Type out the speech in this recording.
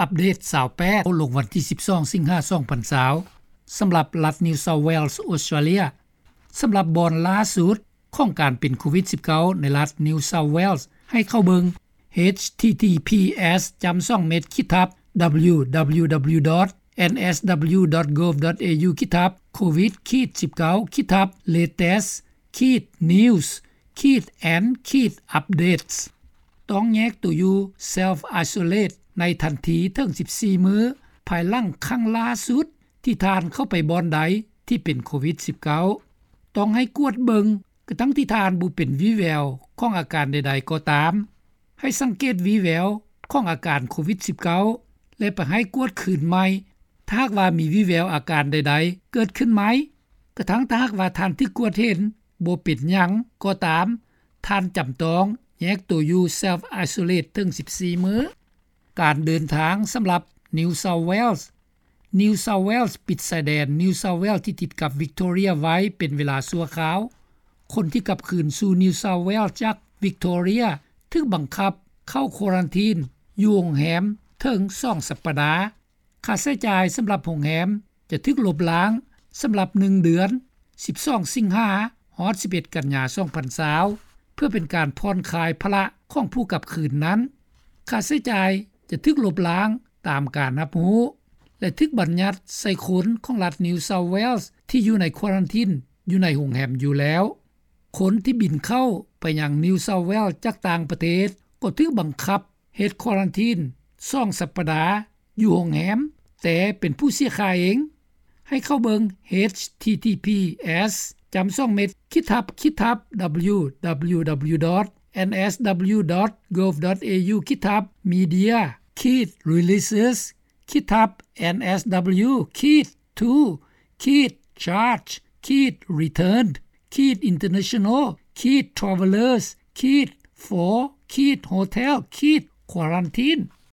ອັບເດດຊາວແປດ ລົງວັນທີສິບສອງ ສິງຫາ ສອງພັນຊາວ ສຳລັບລັດ New South Wales Australia. ສຳລັບບ່ອນລ່າສຸດຂອງການເປັນໂຄວິດສິບເກົ້າ ໃນລັດ New South Wales ໃຫ້ເຂົ້າເບິ່ງ H T T P S ຈ້ຳສອງເມັດ ຂີດທັບ W W W dot N S W dot gov dot A U ຂີດທັບ covid ຂີດສິບເກົ້າ ຂີດທັບ latest ຂີດ news ຂີດ and ຂີດ updates. ຕ້ອງແຍກຕົວຢູ່ self isolate ໃນທັນທີເຖິງສິບສີ່ມື້ ພາຍຫຼັງຄັ້ງລ່າສຸດທີ່ທ່ານເຂົ້າໄປບ່ອນໃດທີ່ເປັນໂຄວິດສິບເກົ້າ. ຕ້ອງໃຫ້ກວດເບິ່ງ ກະທັ່ງທີ່ທ່ານບໍ່ເປັນວີ່ແວວຂອງອາການໃດໆກໍຕາມ. ໃຫ້ສັງເກດວີ່ແວວຂອງອາການໂຄວິດສິບເກົ້າ ແລະ ໄປໃຫ້ກວດຄືນໃໝ່ ຖ້າຫາກວ່າມີວີ່ແວວອາການໃດໆເກີດຂຶ້ນໃໝ່. ກະທັ່ງຖ້າຫາກວ່າທ່ານຖືກກວດເຫັນບໍ່ເປັນຫຍັງກໍຕາມ, ທ່ານຈຳຕ້ອງແຍກໂຕຢູ່ self isolate ເຖິງສິບສີ່ມື້. ການເດີນທາງສຳລັບ New South Wales. New South Wales ປິດຊາຍແດນ New South Wales ທີ່ຕິດກັບ Victoria ໄວ້ເປັນເວລາຊົ່ວຄາວ. ຄົນທີ່ກັບຄືນສູ່ New South Wales ຈາກ Victoria ຖືກບັງຄັບເຂົ້າ quarantine ຢູ່ໂຮງແຮມເຖິງສອງສັບປະດາ. ຄ່າໃຊ້ຈ່າຍສຳລັບໂຮງແຮມຈະຖືກລົບລ້າງສຳລັບໜຶ່ງເດືອນ ສິບສອງ ສິງຫາ ຮອດ ສິບເອັດ ກັນຍາ ສອງພັນຊາວ ເພື່ອເປັນການຜ່ອນຄາຍພາລະຂອງຜູ້ກັບຄືນນັ້ນ. ຄ່າໃຊ້ຈ່າຍຈະຖືກລົບລ້າງຕາມການຮັບຮູ້ ແລະ ຖືກບັນຍັດໃສ່ຄົນຂອງລັດ New South Wales ທີ່ຢູ່ໃນ quarantine ຢູ່ໃນໂຮງແຮມຢູ່ແລ້ວ. ຄົນທີ່ບິນເຂົ້າໄປຍັງ New South Wales ຈາກຕ່າງປະເທດ ກໍຖືກບັງຄັບເຮັດ quarantine ສອງສັບປະດາ ຢູ່ໂຮງແຮມ ແຕ່ເປັນຜູ້ເສຍຄ່າເອງ. ໃຫ້ເຂົ້າເບິ່ງ H T T P S ຈ້ຳສອງເມັດ ຂີດທັບ ຂີດທັບ W W W dot N S W dot gov dot A U ຂີດທັບ media ຂີດ releases ຂີດທັບ N S W ຂີດ to ຂີດ charge ຂີດ returned ຂີດ international ຂີດ travellers ຂີດ for ຂີດ hotel ຂີດ quarantine.